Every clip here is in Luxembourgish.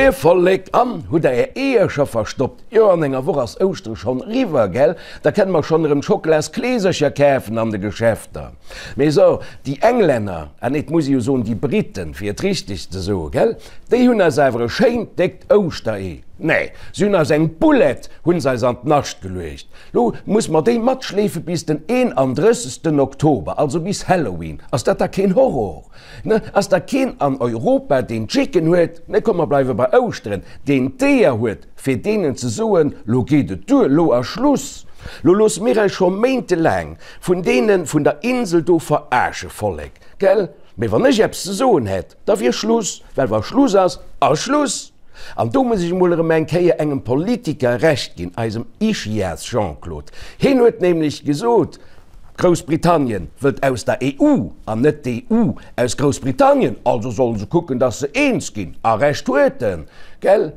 Moie Vollek, an hutt der är Eeër scho verstoppt? Jo, an enger Woch ass Ouschtere schonn eriwwer, gell? Da kënne mer schonn erëm Schokolaskleesercher kafen an de Geschäfter. Mee so, déi Englänner, ah nee, et muss ee jo soen déi Briten, fir et richteg ze soen, gell, déi hunn eis awer e schéint déckt Ouschteree, nee, se hunn eis eng Boulette hunn se eis an d'Nascht geluecht. Lo muss mer déi matschleefe bis den 31. Oktober, also bis Halloween. Ass dat da keen Horror? Ne, ass da keen an Europa, deen d'Chicken huet, ne, komm mer bleiwe bei Ouschteren, deen d'Eeër huet, fir deenen ze soen, lo geet et duer, lo ass Schluss, lo loosse mir eis scho méintelaang vun deene vun der Insel do verarsche, Vollek, gell? Mee wann ech eppes ze soen hätt, da wier Schluss, well wa Schluss ass, ass Schluss! An do muss ech emol erëm eng Kéier engem Politiker Recht ginn, eisem Ischias Jean-Claude. Hien huet nämlech gesot, Groussbritannien wëllt aus der EU an net d'EU aus Groussbritannien, also sollen se kucken, datt se eens ginn. A Recht huet en, gell?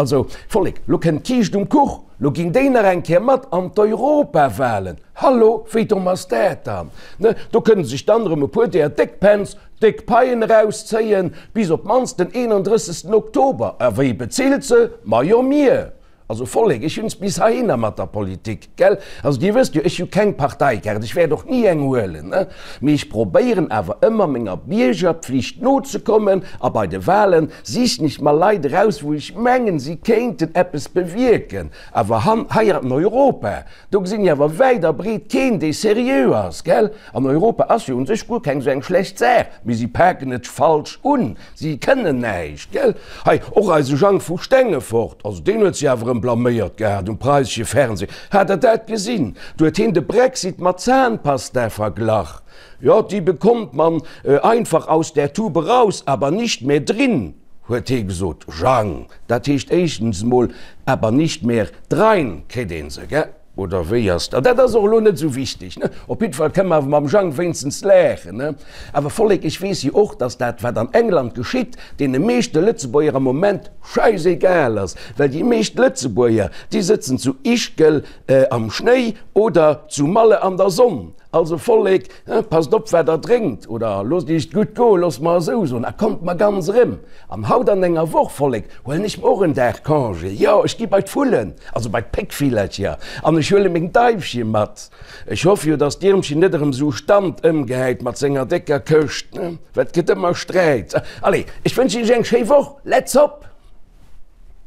Also, Vollek, lo kënnt d'Kiischt um Kuch, lo ginn déi nach eng Kéier mat an d'Europawahlen. Hallo, wéi domm ass dat dann? Ne, do kënne sech dann erëm e puer deeër Déckpänz déck Paien erauszéien, bis op d'mannst den 31. Oktober. A wie bezilt se? Majo mir! Also Vollek, ech hunn es bis heihinner mat der Politik, gell? Also Dir wësst jo, ech hu keng Parteikaart, ech wäert och ni eng huelen, ne? Mee ech probéieren awer ëmmer menger Biergerpflicht nozekommen a bei de Wahlen sichen ech mer Leit eraus, wou ech mengen, si kéinten eppes bewierken. Awer han, hei an Europa, do gesinn ech awer wäit a breet keen, dee seriö ass, gell? An Europa ass jo un sech guer keng esou eng schlecht Saach, mee si paken et falsch un. Si kënnen näischt, gell? Hei, och eise Jang vu Stengefort, also deen huet sech awer erëm blaméiert gehat um preisesche Fernseh. Hat Der dat gesinn? Do huet hien de Brexit mat Zahnpasta verglach. Jo, die bekommt man einfach aus der Tube raus, aber nicht mehr drin, huet hie gesot. Jang, dat heescht éischtens emol, aber nicht mehr drein kritt ee se, gell? Oder wéi ass dat? Dat ass och elo net esou wichteg, ne? Op jiddwer Fall kënne mer awer mam Jang wéinstens laachen, ne? Awer Vollek, ech weess jo och, datt dat, wat an England geschitt, deene meeschte Lëtzebuerger am Moment schäisegal ass, well déi meescht Lëtzebuerger, déi sëtzen zu Ischgl am Schnéi oder zu Malle an der Sonn. Also Vollek, passt op wat der drénkt, oder loosst iech et gutt goen, loosst mer esou soen, a kommt mer ganz erëm. An haut an enger Woch, Vollek, huelen ech mer och en Dag Congé, jo, ech gi bei d'Vullen, also bei d'Péckvillercher, an ech huele meng Daifche mat. Ech hoffe jo, dass d'Iermchen net erëm esou Stand ëmgehäit mat senger décker Këscht, well et gëtt ëmmer Sträit. Allez, ech wënschen iech eng schéi Woch, let's hop!